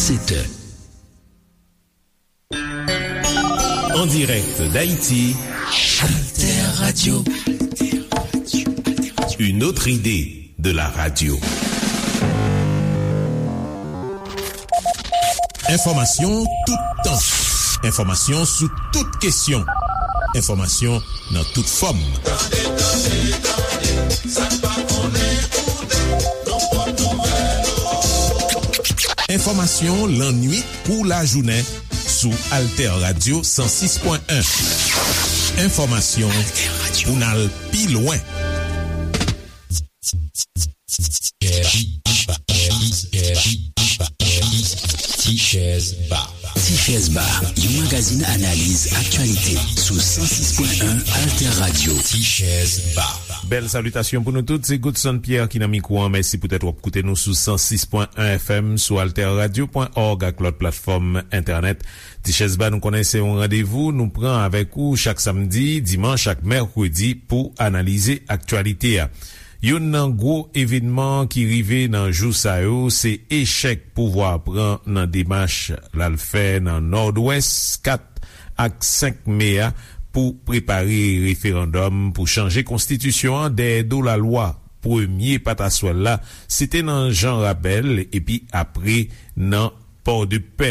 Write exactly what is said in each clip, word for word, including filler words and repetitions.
Sept heures. En direct d'Haïti, Alter Radio. Une autre idée de la radio. Enfòmasyon toutan. Enfòmasyon sou tout kesyon. Enfòmasyon nan tout fòm. Tande, tande, tande, sa n pa konnen koute, nan pòt nouvèl. Enfòmasyon lannuit kou lajounen sou Alter Radio san sis pwen en. Enfòmasyon pou n al pi lwen. Tichèz Ba. Tichèz Ba, yon magazin analiz aktyalite sou san sis pwen en Alter Radio. Tichèz Ba. Bèl salitasyon pou nou tout, se Godson Pierre ki nan mikwo an. Mèsi poutèt w ap koute nou sou san sis pwen en F M, sou alter radio pwen org ak lòt platfòm entènèt. Tichèz Ba, nou konnen se yon randevou nou pran avèk ou chak samdi, dimanch ak mèkredi pou analize aktyalite a. Youn nan gwo evènman ki rive nan jou sa yo, se echèk pouvwa a pran nan demach l al fè nan Nòdwès kat ak senk me a pou prepare referandòm pou chanje konstitisyon an dèyè do lalwa. Premye pataswèl la, se te nan Jan Rabèl, epi apre nan Pòdepè.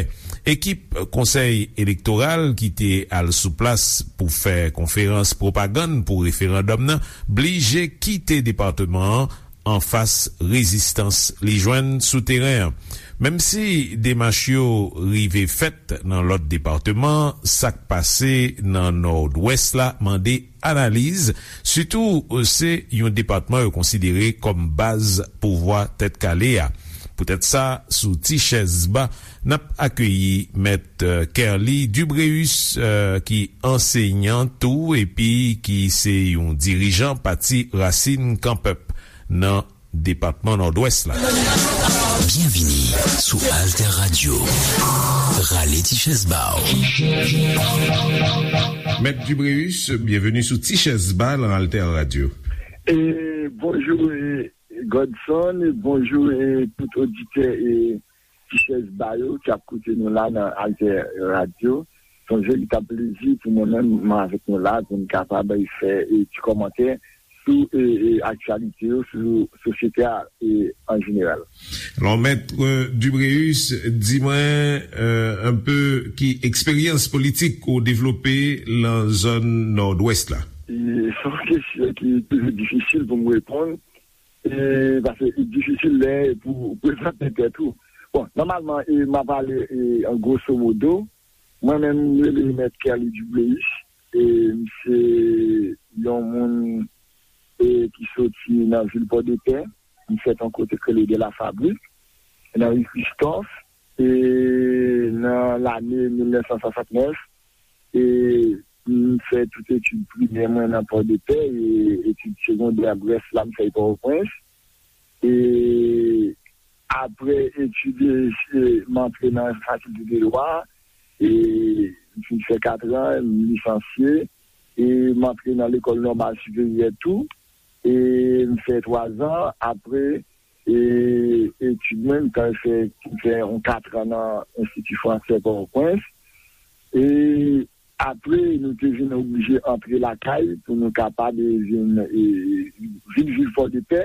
Ekip Konsèy Elektoral ki te al sou plas pou fè konferans pwopagann pou referandòm nan blije kite depatman an anfas rezistans li jwenn sou teren an. Menm si demach yo rive fèt nan lòt depatman, sa k pase nan Nòdwès la mande analiz, sitou se yon depatman yo konsidere kòm baz pouvwa Tèt Kale a. Poutèt sa, sou Ti Chèz Ba, n ap akeyi Mèt, euh, Kerly Dubréus, euh, ki ansenyan tou epi ki se yon dirijan pati Rasin Kan Pèp nan depatman Nòdwès la. Byenvini sou Alter Radio. Rale ti chèz ba w. Mèt Dubréus, byenveni sou Ti Chèz Ba nan Alter Radio. E, bonjou, e, Godson, e, bonjou, e, tout oditè, e, Ti Chèz Ba yo ki ap koute nou la nan Alter Radio. Se yon veritab plezi pou mwen menm, mwen avèk nou la, pou n kapab fè, e, ti kòmantè sou, e, e, aktyalite yo, sou sosyete a, e, an jeneral. Alò, Mèt, e, Dubréus, di mwen, e, un peu ki eksperyans politik ou devlope nan zòn Nòdwès la? E, se yon kesyon ki toujou difisil pou m reponn, e, paske li difisil lè pou prezante tèt ou. Bon, nòmalman, e, m a pale, e, an grosso modo, mwen menm, m rele Mèt Kerly Dubréus, e, m se yon moun, e, ki soti nan vil Pòdepè, m fèt yon kote k rele De la Fabrique, nan ri Christophe, e, nan lane mil nèf san swasantnèf, e, m fè tout etid primè mwen nan Pòdepè, e etid segondè, rès la, m fè Pòtoprens. E apre etid, e, m antre nan fakilte de dwa, e m fin fè katran, m lisansye, e m antre nan lekòl nòmal siperyè tou, e m fè twazan, apre, e etid mwen, m t al fè, m fè yon katran nan Enstiti Fransè Pòtoprens. E apre, nou te vin oblije antre lakay pou nou kapab, e, vin, e, vin viv Pòdepè,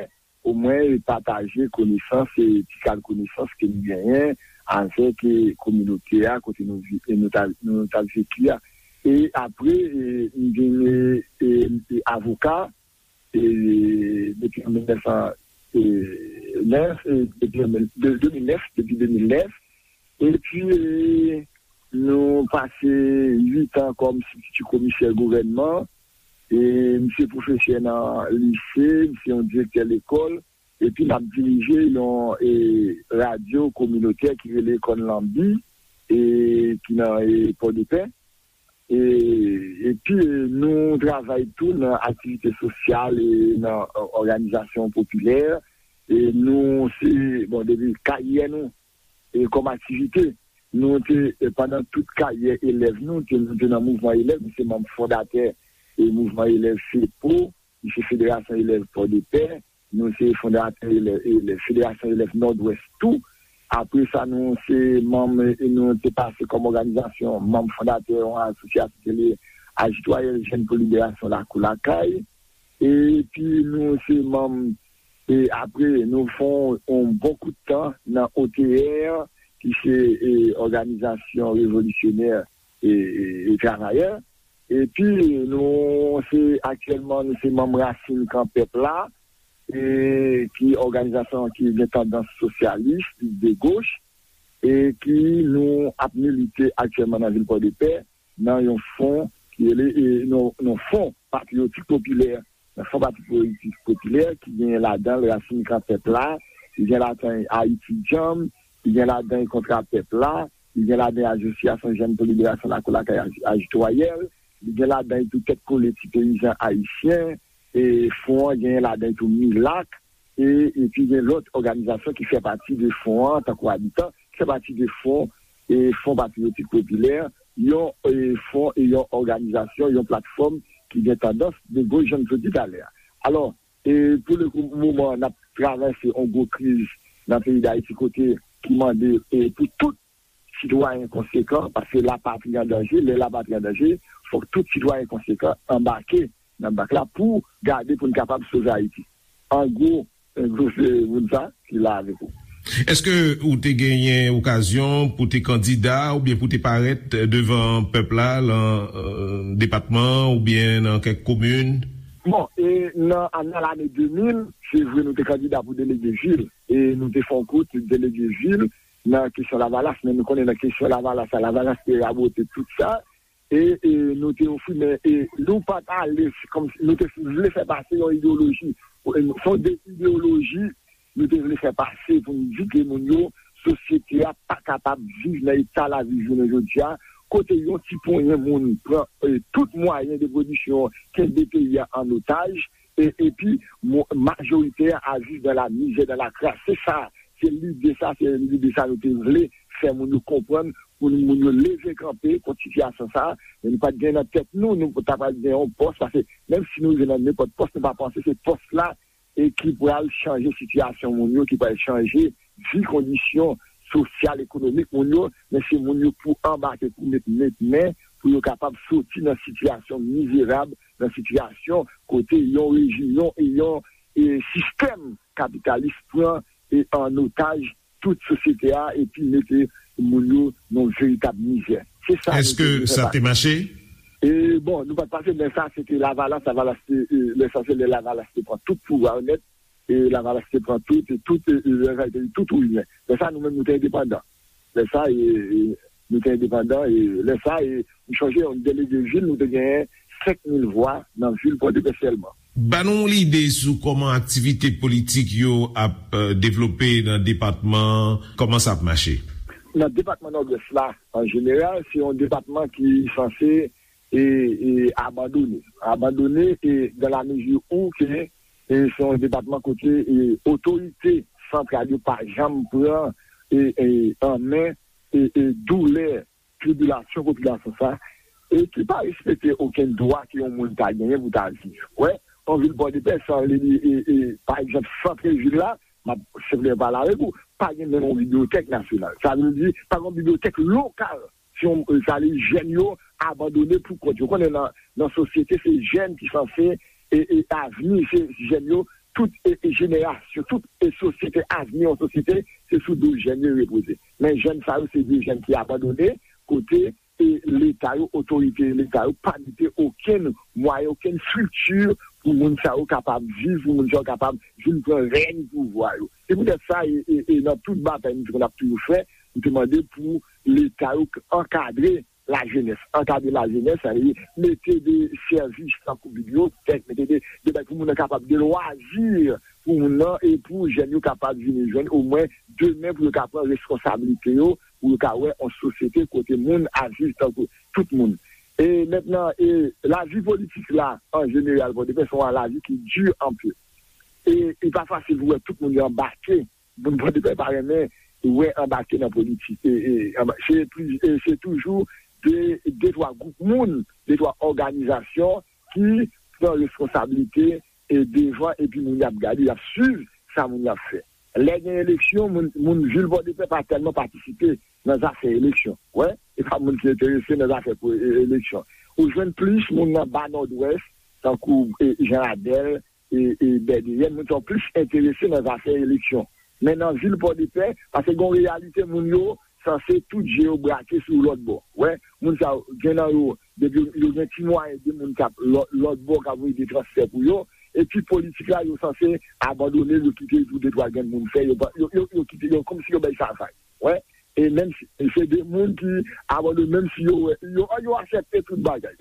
omwen, e, pataje konesans, e, ti kal konesans ke nou genyen avèk, e, kominote a, kote nou vi-, e, nou ta, nou t ap viv a. E apre, e, m vin, e, e, e, avoka, e, depi mil nèf san nèf, e, depi an mil, de, de mil nèf, depi de mil nèf. Epi, e, nou pase uit an kòm sibstiti komisè gouvènman. E, m se pwofesè nan lise, m se yon direktè lekòl. Epi m ap dirije yon, e, radyo kominotè ki rele Kòn Lanbi, e, ki nan, e, Pòdepè. E, epi, e, nou travay tou nan aktivite sosyal e nan, e, òganizasyon popilè. E nou se, bon, depi karyè nou, e kòm aktivite, nou te, e pandan tout karyè elèv nou, te, nou te nan mouvman elèv, nou se manm fondatè e mouvman elèv FEPO, nou se Federasyon Elèv Pòdepè, nou se fondatè elèv, elèv, Federasyon Elèv Nòdwès tou. Apre sa, nou se manm, e nou te pase kòm òganizasyon, manm fondatè yon asosyasyon ki rele Ajitwayèl Jèn pou Liberasyon Lakou Lakay. Epi nou se manm, e apre, nou fè yon bon kout tan nan O T R, ki se, e, òganizasyon revolisyonè, e, e, e travayè. Epi nou se, aktyèlman, nou se manm Rasin Kan Pèp la, e, ki òganizasyon ki gen tandans sosyalis, de goch, e ki nou ap milite aktyèlman nan vil Pòdepè, nan yon fon ki rele, e, non, non, Fon Patriyotik Popilè. Nan Fon Patriyotik Popilè, ki gen ladan l Rasin Kan Pèp la, ki gen ladan Ayiti Djanm, ki gen ladan Kontra Pèp la, ki gen ladan Asosyasyon Jèn pou Liberasyon Lakou Lakay Aj-, Ajitwayèl, li gen ladan tou Tèt Kole Ti Peyizan Ayisyen, e fon an gen ladan tou Milak, e, epi gen lòt òganizasyon ki fè pati de fon an, tankou Abitan, ki fè pati de fon, e, Fon Patriyotik Popilè, yon, e, fon e yon òganizasyon, yon platfòm ki gen tandans de goch, jan m sot di talè a. Alò, e, pou le kou, moman, n ap travèse yon gwo kriz nan peyi Dayiti, kote ki mande, e, pou tout sitwayen konsekan, paske lapatri an danje, lè lapatri an danje, fòk tout sitwayen konsekan anbake nan bak la pou gade pou n kapab sove Ayiti. An gwo, an gwo, se moun sa ki la avèk ou. Èske ou te genyen okazyon pou te kandida oubyen pou te parèt devan pèp la lan, e, depatman oubyen nan kèk komin? Bon, e nan, nan lane de mil, se vre nou te kandida pou delege vil, e nou te fè yon kout delege vil nan kesyon Lavalas, men nou konnen nan kesyon Lavalas la, Lavalas te rabote tout sa, e, e nou te ofri, men, e nou pa t ale, se kòmsi nou te vle fè pase yon ideyoloji. E se yon de ideyoloji nou te vle fè pase pou n di ke moun yo, sosyete a pa kapab viv nan eta l ap viv jounen jodi a, kote yon ti ponyen moun pran, e, tout mwayen de pwodiksyon, kenbe peyi a an otaj, e, epi mo-, majorite a viv dans la misère, dans la crasse. Se sa, se lide sa, se lide sa nou te vle fè moun yo konprann, pou moun yo leve kanpe kont sitiyasyon sa a. Men nou pa t gen nan tèt nou, nou ta pral gen yon pòs, paske menm si nou rive nan nenpòt pòs, nou pa panse se pòs la e ki pral chanje sitiyasyon moun yo, ki pral chanje vi, kondisyon sosyal, ekonomik moun yo, men se moun yo pou anbake, pou met, met men, pou yo kapab soti nan sitiyasyon mizerab, nan sitiyasyon kote yon rejim, yon, yon, e, sistèm kapitalis pran, e, an otaj tout sosyete a epi mete moun yo nan veritab mizè. Se sa nou te vle fè pase. Èske sa te mache? E, bon, nou pa t pase, men sa, se te Lavalas, Lavalas te, e, lè sa, se lè Lavalas te pran tout pouvwa yo nèt, e Lavalas te pran tout, e tout, e, e, lè sa, te tout ou rien. Lè sa, nou menm, nou te endepandan. Lè sa, e, e, nou te endepandan, e lè sa, e, m chonje, yon delege vil, nou te genyen senk mil vwa nan vil Pòdepè sèlman. Ban nou yon lide sou kòman aktivite politik yo ap, e, devlope nan depatman, kòman sa ap mache? Nan depatman Nòdwès la, an jeneral, se yon depatman ki sanse, e, e, abandone. Abandone, e, dans la mesure où ke, e, se yon depatman kote, e, otorite santral yo pa janm pran, e, e, an men, e, e, doulè tribilasyon popilasyon sa, e ki pa respekte okenn dwa ke yon moun ta genyen pou ta viv. Wè, yon vil Pòdepè, san li, e, e, pa egzanp, sant vil la, m ap senpleman pale avèk ou, pa gen menm yon bibliyotèk nasyonal. Sa vle di, pa gen yon bibliyotèk lokal. Si yon, sa vle di, jèn yo abandone pou kont yo. Konnen nan, nan sosyete, se jèn ki sanse, e, e avni, se jèn yo, tout, e, e jenerasyon, tout, e sosyete, avni yon sosyete, se sou do jèn yo repoze. Men jèn sa yo, se de jèn ki abandone, kote, e Leta yo, otorite Leta yo, pa mete okenn mwayen, okenn estrikti pou moun sa yo kapab viv, pou moun sa yo kapab vin pran rèy pouvwa yo. Se poutèt sa, e, e, e nan tout batay nou te konn ap toujou fè, nou te mande pou Leta yo k-, ankadre lajenès, ankadre lajenès, sa vle di mete de sèvis tankou bibliyotèk, mete de, de bagay pou moun nan kapab gen lwazi pou moun nan e pou jèn yo kapab vin jwenn omwen demen pou yo ka pran reskonsablite yo, pou yo ka wè yon sosyete kote moun ap viv tankou tout moun. E mentnan, e lavi politik la, an jeneral, Pòdepè, se yon lavi ki di anpil. E li pa fasil pou wè tout moun yo anbake. Moun Pòdepè pa renmen wè anbake nan politik. E, e, anba-, se pli-, e se toujou de, de twa gwoup moun, de twa òganizasyon ki pran reskonsablite e devan, epi moun y ap gade, y ap swiv sa moun y ap fè. Lè gen eleksyon, moun, moun vil Pòdepè pa tèlman patisipe nan zafè eleksyon. Wè, e pa moun ki enterese nan zafè pou e- eleksyon. Ou jwenn plis moun nan ba Nòdwès, tankou e, Jan Radèl, e, e Bèdeyèn, moun sa yo plis enterese nan zafè eleksyon. Men nan vil Pòdepè, paske gen yon reyalite, moun yo sanse tout je yo brake sou lòt bò. Wè, moun sa yo, gen nan yo, depi yo, yo gen ti mwayen de moun k ap lò- lòt bò k ap voye de transfè pou yo, epi politik la, yo sanse abandone l, yo kite l pou de twa grenn moun fè, yo, pa- yo, yo, yo kite, yo kòmsi yo bay sa vag. Wè, e menm si se de moun ki abandone, menm si yo wè, yo, yo aksepte tout bagay.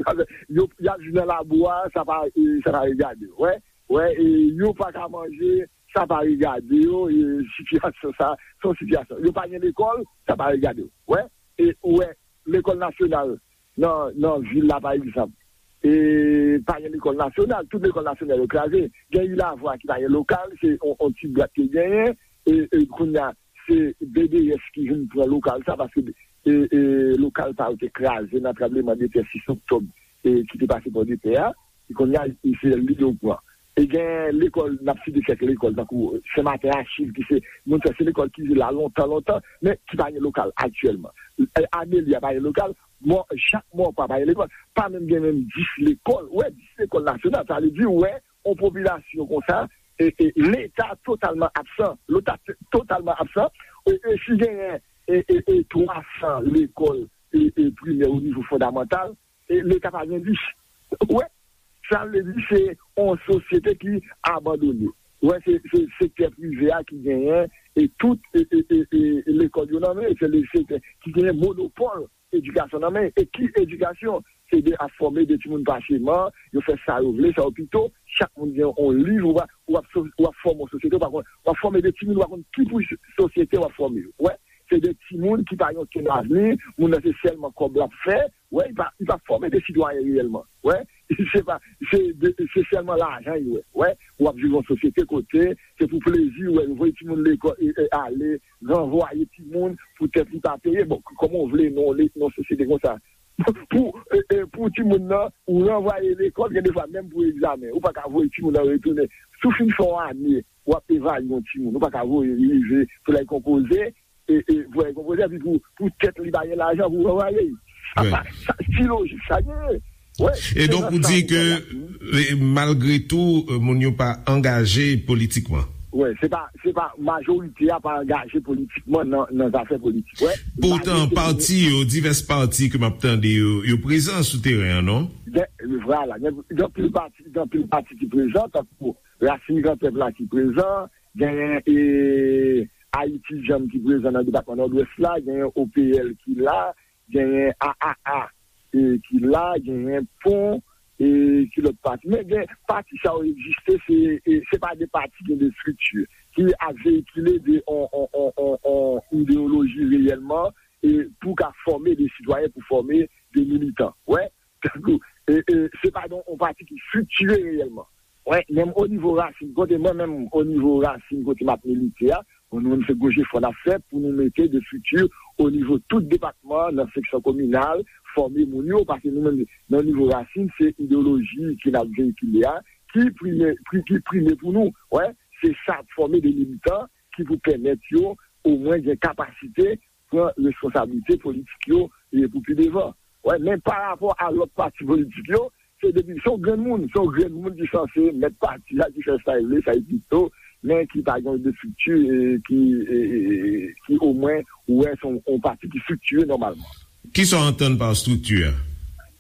Yo, y ap viv nan labou a, sa pa, e, sa pa regade yo. Wè, wè, e, yo pa ka manje, sa pa regade yo, e, sitiyasyon sa, se yon sitiyasyon. Yo pa gen lekòl, sa pa regade yo. Wè, e, ou wè, lekòl nasyonal nan, nan vil la, pa egzanp, e, pa gen lekòl nasyonal, tout lekòl nasyonal yo kraze. Gen Ilavwa ki pa gen lokal, se on, on ti bwat ki genyen, e, e, kounye a, se B D S ki vin pran lokal sa, paske, e, e, lokal pa yo te kraze nan tranbleman de tè sis oktòb, e, ki te pase Pòdepè a, e kounye a, e se li yo pran. E gen lekòl, n ap site kèk lekòl, tankou Sen Maten Achiv, ki se, moun sa, se lekòl ki la lontan, lontan, men ki pa gen lokal aktyèlman. E, Amelia pa gen lokal, mò, Jakmòpa pa gen lekòl, pa menm gen menm dis lekòl. Wè, dis lekòl nasyonal, sa vle di, wè, yon popilasyon konsa, e, e, Leta totalman absan, Leta t- totalman absan, e, e si genyen, e, e, e, twa san lekòl, e, e, primè o nivo fondamantal, e, Leta pa gen dis. Wè, sa vle di se yon sosyete ki abandone. Wè, se, se sektè prive a ki genyen, e tout, e, e, e, e, lekòl yo nan men, se le sektè ki genyen monopòl edikasyon nan men. E ki edikasyon? Se de ap fòme de timoun paseman, yo fè sa yo vle, sa yo pito, chak moun gen yon liv, ou pa, w ap so- w ap fòme yon sosyete, ou pa konn, w ap fòme de timoun, ou pa konn ki pou sosyete w ap fòme yo. Wè, se de timoun ki pa gen okenn avni, moun nan se sèlman kòb l ap fè, wè, li pa, li pa fòme de sitwayen reyèlman. Wè, se pa, se de, se sèlman lajan li wè. Wè, w ap viv yon sosyete kote, se pou plezi, wè, yo voye timoun lekòl, e, e, ale, ranvwaye timoun, poutèt li pa peye. Bon, kòman w vle nan le- nan sosyete konsa? Pou, e, e, pou timoun nan, ou ranvwaye lekòl, gen de fwa menm pou egzamen, ou pa ka voye timoun nan retounen. Si w fin fè yon ane, w ap evalye yon timoun, ou pa ka voye li rive pou l al konpoze, e, e, pou l al konpoze, epi pou, pou tèt li pa gen lajan pou ranvwaye l. Sa pa, sa, ki lojik sa genyen? Wè, e donk, ou di ke, e, malgre tou, e, moun yo pa angaje politikman. Wè, se pa, se pa majorite a pa angaje politikman nan, nan zafè politik. Wè, poutan, pati yo, divès pati ke m ap tande yo, yo prezan sou teren an, non? Gen, vwala, gen, gen anpil pati, gen anpil pati ki prezan, tankou Rasin Gran Pèp la ki prezan, genyen, e, Ayiti Djanm ki prezan nan depatman Nòdwès la, genyen O P L ki la, genyen A A A, e, ki la, genyen Pon, e, ki lòt pati. Men gen pati sa yo egziste, se, e, se pa de pati, gen de estrikti ki ap veyikile de on, on, on, on, on ideyoloji reyèlman, e, pou ka fòme de sitwayen, pou fòme de militan. Wè, tankou, e, e, se pa de on pati ki estriktire reyèlman. Wè, menm o nivo rasin, kote mwen menm, o nivo rasin, kote m ap milite a, bon, nou menm se gwo jefò n ap fè pou nou mete de estrikti o nivo tout depatman, nan seksyon kominal, fòme moun yo, paske nou menm, nan nivo rasin, se ideyoloji ke n ap veyikile a, ki prime, pri- ki prime pou nou. Wè, se sa ap fòme de militan ki pou pèmèt yo omwen gen kapasite pran responsablite politik yo, e, pou pi devan. Wè, men pa rapò a lòt pati politik yo, se depi, se yon grenn moun, se yon grenn moun ki sanse mèt pati a, ki fè sa l vle, sa l pito, men ki pa gen de estrikti, e, ki, e, e, e, ki omwen, ou wè, se yon, yon pati ki estriktire nòmalman. Kisa w antann pa estrikti a?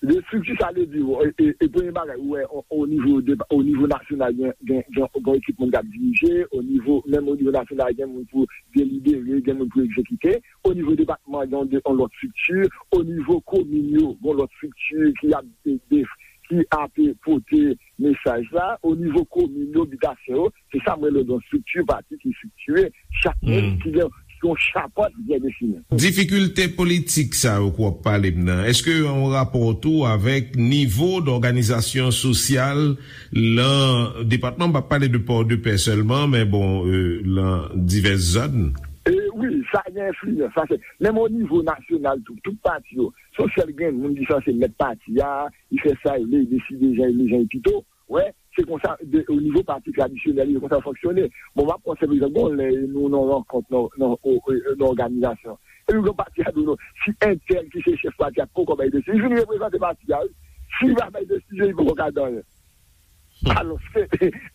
De estrikti, sa vle di, e, e, e premye bagay, ou wè, o, o nivo de, o nivo nasyonal, gen, gen, gen, gen ekip moun k ap dirije, o nivo, menm o nivo nasyonal, gen moun pou delibere, gen moun pou egzekite. O nivo depatman, gen yon de- yon lòt estrikti. O nivo komin yo, gen yon lòt estrikti ki ap, e, de- ki ap pote mesaj la. O nivo komin yo, bitasyon yo, se sa m rele yon estrikti pati ki estriktire. Chak moun ki gen yon chapant byen defini. Difikilte politik sa yo ke w ap pale m nan, èske yo gen yon rapò tou avèk nivo dòganizasyon sosyal lan depatman? M p ap pale de Pòdepè sèlman, men bon, e, lan divès zòn. E wi, sa gen enfliyans. Sa se, menm o nivo nasyonal tou, tout pati yo, se yon sèl grenn moun ki sanse mèt pati a, li fè sa li vle, li deside jan li vle, jan li pito. Wè, Se konsa, de, o nivo pati tradisyonèl, se konsa l fonksyone. Bon, m ap pran senp egzanp, gon lè nou nan rankont, nan, nan, o, o, nan òganizasyon. Epi gon pati a di w non, si entèl ki se chèf pati a poko bay desizyon, li vin reprezante pati a, wi. Si li pa bay desizyon, li poko ka di anyen. Alò, se,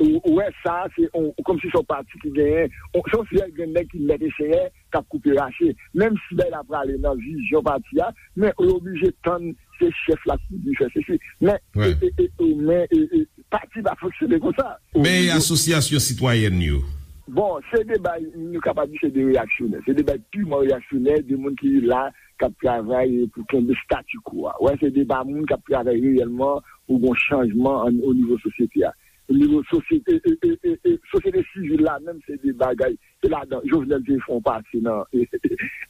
ou, ou wè sa, se on, kòmsi se yon pati ki genyen, on, se yon seri grenn nèg ki mèt e senyè k ap koupe rache. Menm si bagay la prale nan vizyon pati a, men yo oblije tann se chèf la ki di fè sesi. Men, e, e, e, e, men, e, e, pati pa fonksyone konsa. Men asosyasyon sitwayèn yo? Bon, se de bay, nou kapab di se de reyaksyonè. Se de bay piman reyaksyonè, de moun ki la, k ap travay pou kenbe statu quo a. Wè, se de pa moun k ap travay reyèlman pou gon chanjman an, o nivo sosyete a. O nivo sosyete, e, e, e, e, e, sosyete sivil la menm, se de bagay, se ladan Jovenel te fè yon pase nan,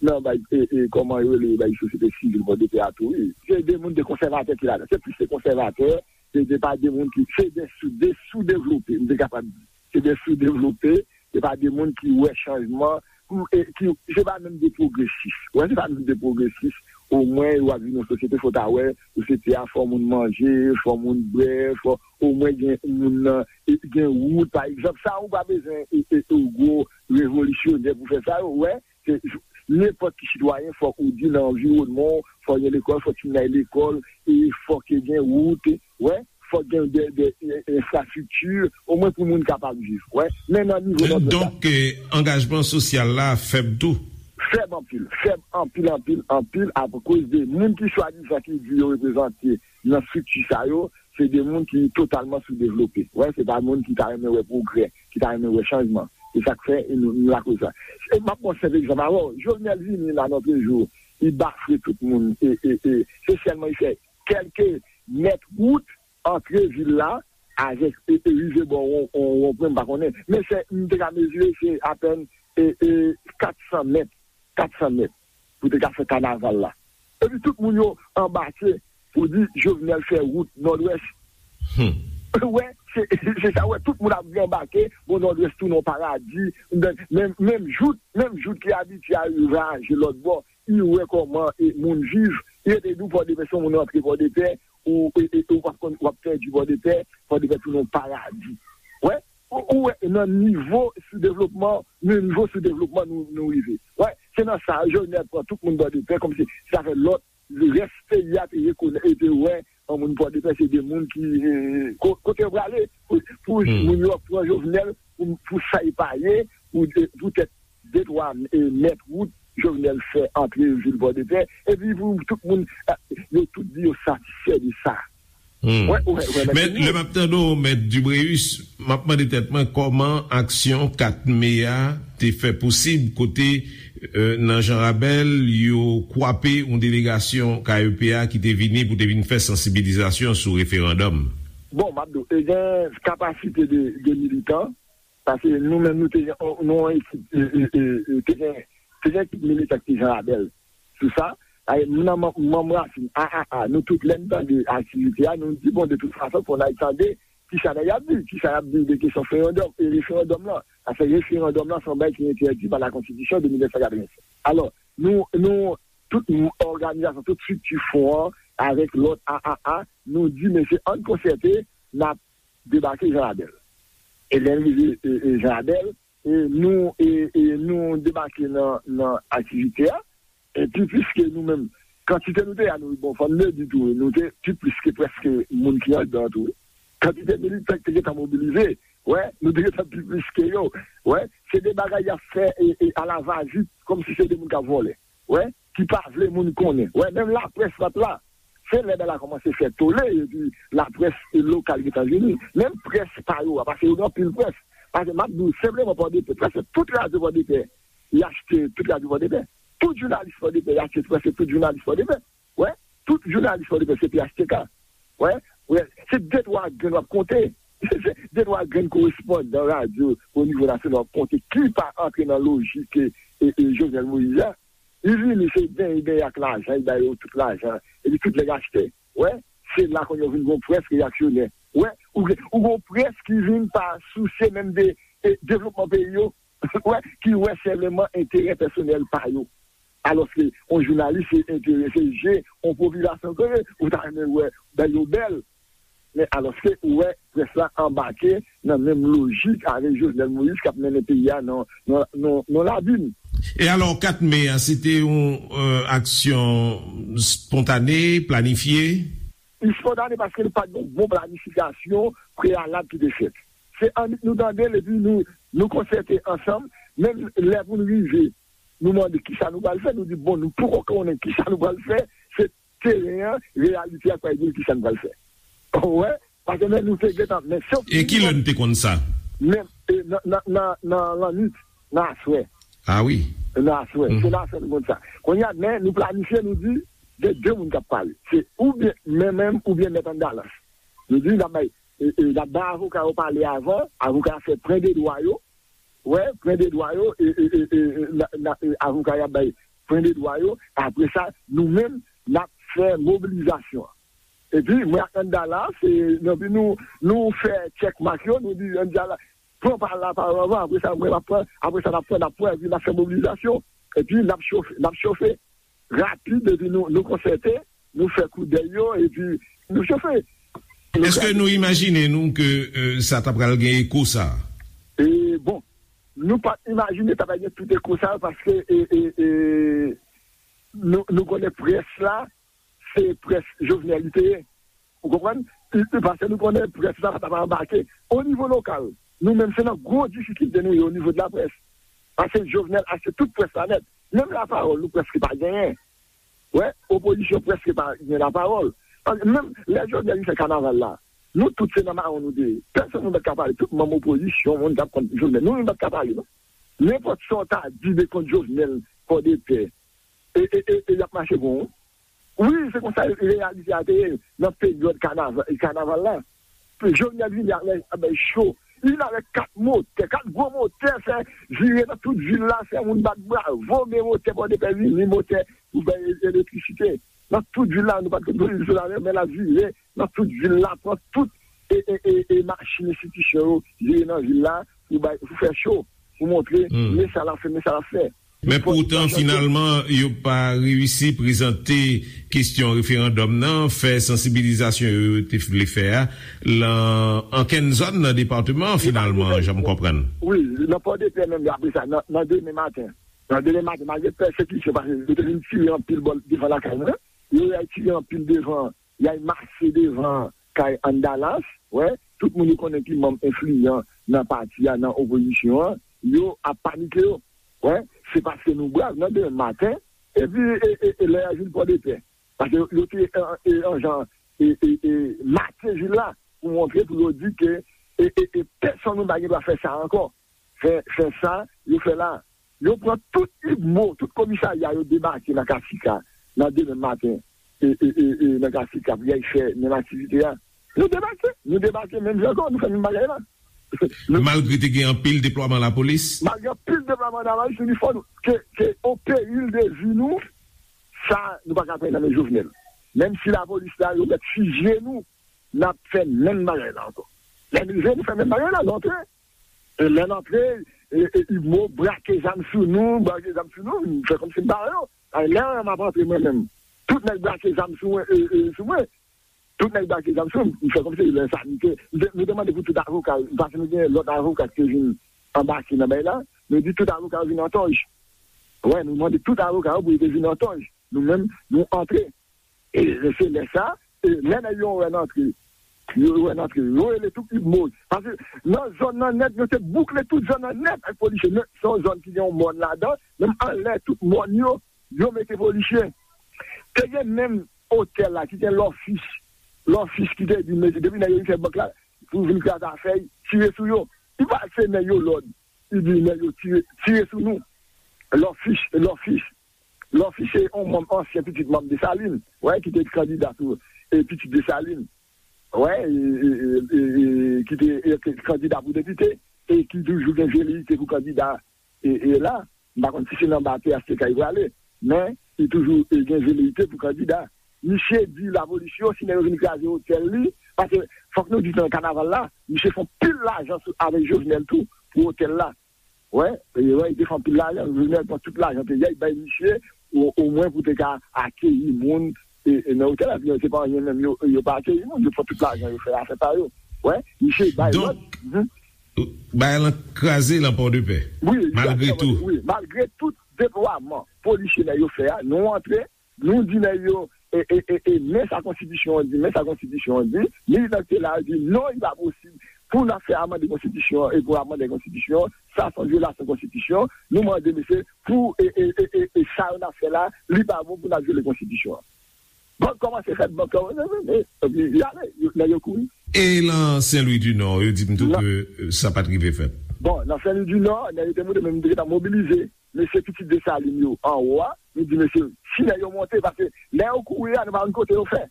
nan bay, e, e, kòman yo rele, bay sosyete sivil Pòdepè a tou, wi. Se de moun de konsèvatè ki ladan. Se plis de konsèvatè, se de pa de moun ki, se de sou, de soudevlope, m te kapab di. Se de soudevlope, se pa de moun ki wè chanjman, pou, e, ki, se pa menm de pwogresis. Wè, se pa menm de pwogresis. Omwen, w ap viv nan sosyete, fò w ta wè, sosyete a, fò moun manje, fò moun bwè, fò omwen gen moun nan, e, gen wout, pa egzanp. Sa, ou pa bezwen, e, e, e, gwo revolisyonè pou fè sa, yo, wè, se, nenpòt ki sitwayen, fòk ou di nan anviwònman w, fòk gen lekòl, fòk timoun al lekòl, e fòk gen wout, wè, fòk gen de, de, e, enfrastrikti, omwen pou moun kapab viv, wè. Men nan nivo nan Donk, eh, angajman sosyal la fèb tou? Fèb anpil, fèb anpil, anpil, anpil, akoz de moun ki swadizan ki di yo reprezante nan estrikti sa yo, se de moun ki totalman soudevlope. Wè, se pa moun ki ta renmen wè pwogrè, ki ta renmen wè chanjman. Se sa k fè nou, nou lakoz sa. E m ap pran senp egzanp avè w. Jovenel vini la nan premye jou, li bafwe tout moun. E, e, e, se sèlman li fè kèlke mèt wout antre vil la avèk, e, e, rive bò won, won, wonpwen, m pa konnen. Men se, m te ka mezire, se apèn, e, e, kat san mèt, kat san mèt, pou te ka fè kanaval la. Epi tout moun yo anbake pou di Jovenel fè wout Nòdwès. Hmm. Wè, se, se sa, wè, tout moun ap anbake, bon, Nòdwès tounen yon paradi, menm, menm jout, menm jout ki abitye al vwayaje lòt bò, li wè kòman, e, moun viv, li rete di w Pòdepè, se yon moun rantre Pòdepè, ou, e, e, ou p ap konn, w ap pèdi Pòdepè, Pòdepè tounen yon paradi. Wè, ou, ou wè, nan nivo soudevlopman, nan nivo soudevlopman nou, nou rive. Wè, se nan sa, Jovenel pran tout moun Pòdepè, kòmsi sa fè lòt, rès peyi a te rekonèt, e te wè, an moun Pòdepè, se de moun ki, e, ko-, kote yo prale, pou, pou moun yo pran Jovenel, pou, pou sa y pa ye, pou, poutèt de twa, e, mèt wout Jovenel fè antre vil Pòdepè, epi pou tout moun, e, yo tout di yo satisfè de sa. Hmm. Wè, wè, wè, Men lè m ap tande w, Mèt Dubréus, m ap mande tèt mwen kòman aksyon kat me a te fè posib kote, e, nan Jan Rabèl, yo kwape yon delegasyon K E P a ki te vini pou te vin fè sansibilizasyon sou referandòm. Bon, m ap di w, e gen kapasite de, de militan, paske nou menm nou te gen, nou yon ekip, e, e, e, e, te gen, te gen ekip militan ki te Jan Rabèl sou sa. Ay, m nan manm, manm rasin, a, a, a, nou tout lè n tande aktivite a, nou di, bon, de tout fason, fò n al tande kisa nèg y ap di, kisa y ap di de kesyon referandòm, e referandòm lan. Paske referandòm lan se yon bagay ki entèdi pa la konstitisyon de mil nèf san katrevennsèt. Alò, nou, nou, tout òganizasyon, tout estrikti fon an, avèk lòt a a a, nou di, mesye, ann konsète, n ap debake Jan Rabèl. E lè n rive, e, e, Jan Rabèl, e, nou, e, e, nou debake nan, nan aktivite a, epi piske nou menm, kantite nou te a, nou, bon, fò n le di tou, nou te pi plis ke prèske moun ki anndan tou. Kantite militan ki te gentan mobilize, wè, nou te gentan pi plis ke yo. Wè, se de bagay y ap fè, e, e, alavazit, kòmsi se de moun k ap vòlè. Wè, ki pa vle moun konnen. Wè, menm laprès pa t la. Se lè bagay la kòmanse fè tole, epi laprès lokal gentan vini. Menm près pa yo a, paske yo gen anpil près. Paske m ap di w senpleman Pòdepè, prèske tout radyo Pòdepè, y achte tout radyo Pòdepè. Tout jounalis Pòdepè, y achte prèske tout jounalis Pòdepè. Wè, tout jounalis Pòdepè se P H T K. Wè, wè, se de twa grenn w ap konte. Se de twa grenn korespondan radyo o nivo nasyonal w ap konte ki pa antre nan lojik, e, e, e, Jovenel Moïse la. Li vini, se benyen, benyen ak lajan, li ba yo tout lajan, epi tout nèg achte. Wè, se la kounye a w vin gon près reyaksyonè. Wè, ou gen, ou gon près ki vin pa sousye menm de, e, devlopman peyi yo. Wè, ki wè senpleman enterè pèsonèl pa yo. Alòske yon jounalis se enterese je yon popilasyon ke ou ta renmen wè bèl yo bèl. Men alòske ou wè près la anbake nan menm lojik avèk Jovenel Moïse k ap mennen peyi a nan, nan, nan, nan labim. E alò, kat me a, se te yon euh, aksyon spontane, planifye? Li spontane paske nou pa t gen yon bon planifikasyon preyalab ki te fèt. Se annik nou tande l epi nou, nou konsète ansanm, menm lè pou nou rive, nou mande kisa nou pral fè, nou di bon, nou poko konnen kisa nou pral fè, se teren an, reyalite a k pral di nou kisa nou pral fè. Ou wè? Paske men nou te gentan, men sof E ki lè nou te konn sa? Men e, nan, nan, nan, nan lannwit, nan aswè. Ah wi. Nan aswè. Se nan aswè nou konn sa. Kounye a, men nou planifye, nou di, gen de moun k ap pale. Se oubyen men menm, oubyen mèt Andalas. Nou di, n ap bay, e, e, n ap bay avoka yo pale avan, avoka yo fè pwen de dwa yo, wè, pwen de dwa yo, e, e, e, e, e, na, na, e, avoka y ap bay pwen de dwa yo, apre sa, nou menm, n ap fè mobilizasyon an. Epi, mwen ak Andalas, e, epi nou, nou fè tchèkmak yo, nou di Andalas, pran pa lapawòl avan, apre sa, mwen, m ap pran, apre sa, n ap pran, n ap pran, epi n ap fè mobilizasyon, epi n ap chofe, n ap chofe. Rapid, epi nou, nou konsète, nou fè koudèy yo, epi nou chofe. Èske nou imajine nou ke euh, sa ta pral gen eko sa? E, bon, nou pa t imajine ta pral gen tout eko sa, paske e, e, e, nou, nou konnen près la, se près Jovenel li te ye. Ou konprann? I- i- Paske nou konnen près la pa ta pral anbake. O nivo lokal, nou menm se nan gwo difikilte nou ye o nivo de laprès. Paske Jovenel achte tout près la nèt. Menm lapawòl, nou prèske pa genyen. Wè, opozisyon prèske pa gen lapawòl. Paske menm lè Jovenel li fè kanaval la, nou tout se nan mawon nou te ye. Pèsonn nou pa t ka pale. Tout manm opozisyon, moun k ap kont Jovenel, nou menm pa t ka pale, non. Nenpòt sa w ta di de kont Jovenel, Pòdepè, e, e, e, e y ap mache pou ou. Wi, se konsa reyalite a te ye nan peryòd kanaval, kanaval la. Jovenel vini avèk, avèk cho. Li vin avèk kat motè, kat gwo motè, fè vire nan tout vil la, fè moun bat bravo, men motè Pòdepè vini, motè pou bay e- elektrisite. Nan tout vil la, nou pa t konn pwodui solè, men l ap vire nan tout vil la, pran tout e, e, e, e machin enstitisyon yo, vire nan vil la, pou bay, pou fè cho, pou montre, men sa l ap fè, men sa l ap fè. Men poutan, finalman, yo pa reyisi prezante kesyon referandòm nan, fè sansibilizasyon yo yo te vle fè a, lan ankenn zòn nan depatman an, finalman, jan m konprann. Wi, nan Pòdepè menm, apre sa, nan, nan demen maten. Nan demen maten, malgre pèsekisyon, paske yo te vin tire anpil bò devan lakay mwen, yo al tire anpil devan, y al mache devan kay Andalas, wè, tout moun yo konnen ki manm enfliyan nan pati a, nan opozisyon an, yo ap panike yo. Wè, se paske nou brav nan demen maten, epi e, e, e lè y al vin Pòdepè. Paske yo, yo te an, e, an jan e, e, e, make vil la pou montre, pou yo di ke e, e, e, pèsonn moun pa gen dwa fè sa ankò. Fè, fè sa yo fè la. Yo pran tout ibmo, tout komisarya yo debake nan Kasika, nan demen maten, e, e, e, e, nan Kasika, pou y al fè menm aktivite a. Nou debake, nou debake menm jan ankò, nou fè menm bagay la. Malgre te gen anpil deplwaman lapolis? Malgre anpil deplwaman lapolis, nou di fò nou, ke, ke o peril de vi nou, sa, nou pa ka pran nan men Jovenel. Menm si lapolis la, yo mèt fizye nou, n ap fè menm bagay la ankò. Lè n rive, nou fè menm bagay la, n antre. E lè n antre, e, e, Ibmo brake zam sou nou, brake zam sou nou, nou fè kòmsi n pa wè yo. Lè m ap antre mwen menm, tout nèg brake zam sou mwen, e, e, sou mwen. Tout nèg brake zam sou mwen, m fè kòmsi lè sa, nou te, nou te, nou te mande pou tout avoka, paske nou gen lòt avoka ki te vin anbake nan bagay la, nou di tout avoka yo vin an tòj. Wè, nou mande tout avoka yo pou yo te vin an tòj. Nou menm, nou antre. E se lè sa, e lè nèg yo wè n antre, yo wè n antre, yo rele tout Ibmo. Paske nan zòn nan nèt, yo te boukle tout zòn nan nèt ak polisye. Men se yon zòn ki gen yon mòn ladan, menm anlè tout mòn yo, yo mete polisye. Te gen menm otèl la ki gen Lòfis, Lòfis ki te di, mesye, depi nèg yo vin fè bank la, pou vin kraze afè, tire sou yo. Li pa se nèg yo lòd, li di nèg yo tire, tire sou nou. Lòfis, Lòfis. Lòfis se yon manm, ansyen pitit manm Desalin, wè, ki te kandida pou e, pitit Desalin, wè, e, e, e, e, e, ki te e, kandida pou depite, e ki toujou gen veleyite pou kandida e, e la. M pa konn si se nan ba P H T K li prale, men li toujou e, gen veleyite pou kandida. Misye di lapolis yo, si nèg yo vin kraze otèl li, paske fòk nou di nan kanaval la, misye fè pil lajan sou, avèk Jovenel tou, pou otèl la. Wè, e, wè, li te fè anpil lajan, Jovenel pran tout lajan peyi a, li bay misye, o, omwen pou te ka akeyi moun, e, e nan otèl la, se pa anyen menm, yo, yo pa akeyi moun, yo pran tout lajan, yo fè afè pa yo. Wè, misye bay lòd. Donk, bagay lan kraze lan Pòdepè, malgre tou. Wi, malgre tout deplwaman polisye nèg yo fè a, nou antre, nou di nèg yo, e, e, e, e, men sa konstitisyon an di, men sa konstitisyon an di, militan ki te la yo di, non, li pa posib pou n ap fè amande konstitisyon an, e pou amande konstitisyon an, sa se yon vyolasyon konstitisyon, nou mande mesye, pou, e, e, e, e, e sa yo n ap fè la, li pa bon pou n ap vyole konstitisyon an. Bank kòmanse fèt, bank kòmanse fèt, epi y ale, yo, nèg yo kouri. E lan Sen Lwi di Nò, yo di m tou ke, euh, sa pa t rive fèt. Bon, nan Sen Lwi di Nò, nèg yo te monte, men m te gentan mobilize mesye pitit Desalin yo anwo a, nou di mesye, si nèg yo monte, paske lè yo kouri a, nou pa konn kote yo fè.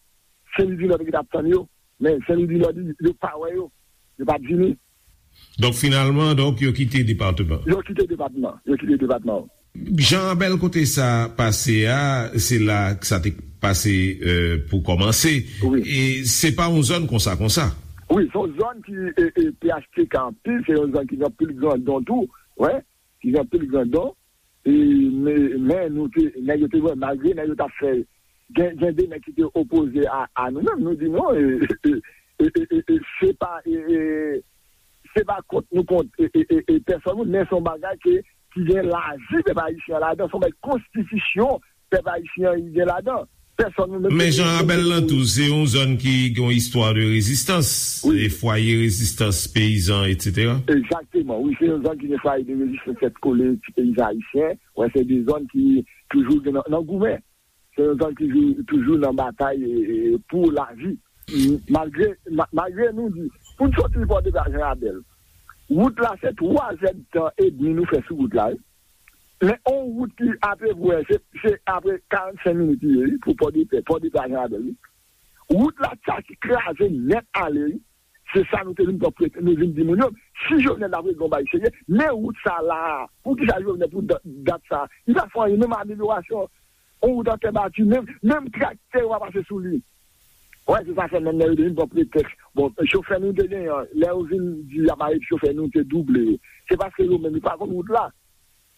Sen Lwi di Nò te gentan ap tann yo, men Sen Lwi di Nò di, yo pa wè yo, yo pa t vini. Donk, finalman, donk, yo kite depatman. Yo kite depatman. Yo kite depatman. Jan Rabèl, kote sa pase a, se la sa te pase, euh, pou kòmanse. Wi. E se pa yon zòn konsa, konsa. Wi, se yon zòn ki, e, e, P H T K anpil, se yon zòn ki gen anpil grandon tou, wè, ki gen anpil grandon. E, men, men nou te, nèg yo te wè, malgre nèg yo t ap fè, gen, gen de nèg ki te opoze a, a nou menm, nou di non, e, e, e, e, e, e, se pa, e, e, se pa kont nou kont, e, e, e, e, pèsòn moun, men se yon bagay ke, ki gen lavi pèp ayisyen an ladan, se yon bagay konstitisyon pèp ayisyen an gen ladan. Pèsòn nou menm. Men Jan Rabèl lan tou, se yon zòn ki gen yon istwa de rezistans, wi, e fwaye rezistans peyizan, etsetera. Egzakteman, wi, se yon zòn ki gen fwaye de rezistans tèt kole ti peyizan ayisyen. Wè, se de zòn ki toujou gen nan, nan goumen. Se yon zòn ki jou-, toujou nan batay, e, e, pou lavi. M-, malgre, ma-, malgre nou di, pou n soti Pòdepè a Jan Rabèl, wout la se twa zèdtan edmi nou fè sou wout la, wi. Men on wout ki apeprè, se, se apre karannsenk minit li ye, wi, pou Pòdepè, Pòdepè a Jan Rabèl, wi. Wout la, sa ki kraze nèt ale, wi. Se sa nou te vin pran prete, nou vin di moun yo, si Jovenel ta vle gon bagay serye, men wout sa la, poukisa Jovenel pou dat, dat sa, li pa fè anyen, menm amelyorasyon, on wout an tè bati, menm, menm traktè yo pa pase sou li. Wè, se sa fè menm lè yo te vin pran pretèks. Bon, chofè nou te genyen an, lè yo vin di y ap arete chofè nou, te double yo. Se paske yo menm, yo pa konn wout la.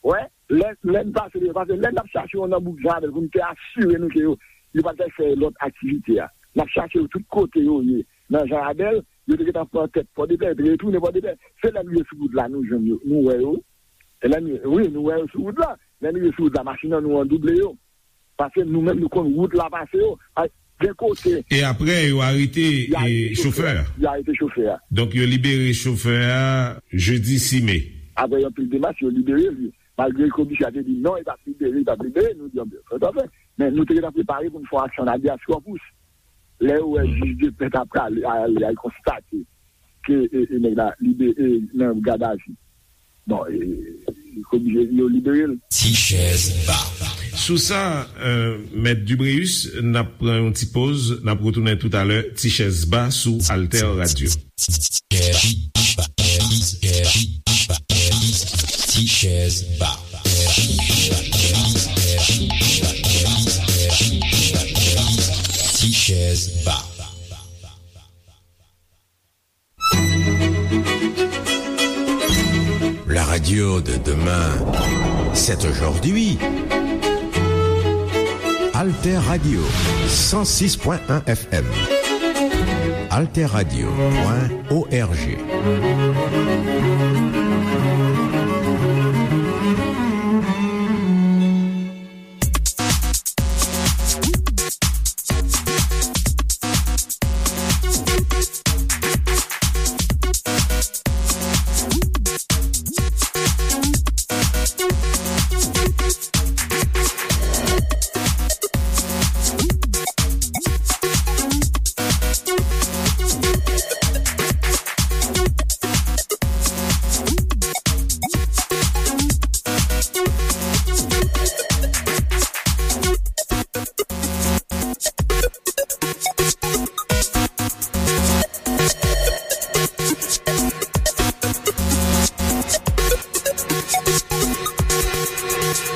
Wè, lè, lè n pase, paske lè n ap chache yo nan bouk Jan Rabèl pou n te asire nou ke yo, yo pa t fè lòt aktivite a. N ap chache yo tout kote yo ye. Nan Jan Rabèl, yo te gentan pran tèt Pòdepè, yo te retounen Pòdepè. Se lè n rive sou wout la, nou jwenn yo, nou wè yo. E lè n, wi, nou wè yo sou wout la. Lè n rive sou wout la, machin an nou an double yo. Paske nou menm nou konn wout la pase yo. A, gen kote. E apre, yo arete, yo arete e, chofè a. Yo arete chofè a. Donk, yo libere chofè a jedi sis me. Apre yon pil demach, yo libere li. Malgre komisè a te di non, li p ap libere, li p ap libere, nou di, anben, fè sa fè. Men nou te gentan prepare pou n fè yon aksyon habeas corpus. Lè yo wè jij de pè t ap prale, ale, al konstate ke, e, e, nèg la libere nan gadavi. Bon, e, e, oblije yo libere l. Ti chèz ba. Sou sa, euh, Mèt Dubréus, n ap pran yon ti poz, n ap retounen toutalè, Ti chèz ba sou Alter Radio. Ti chèz ba. Ti chèz ba. La radio de demain, c'est aujourd'hui. Alter Radio, cent six point un F M. Alter Radio point O R G.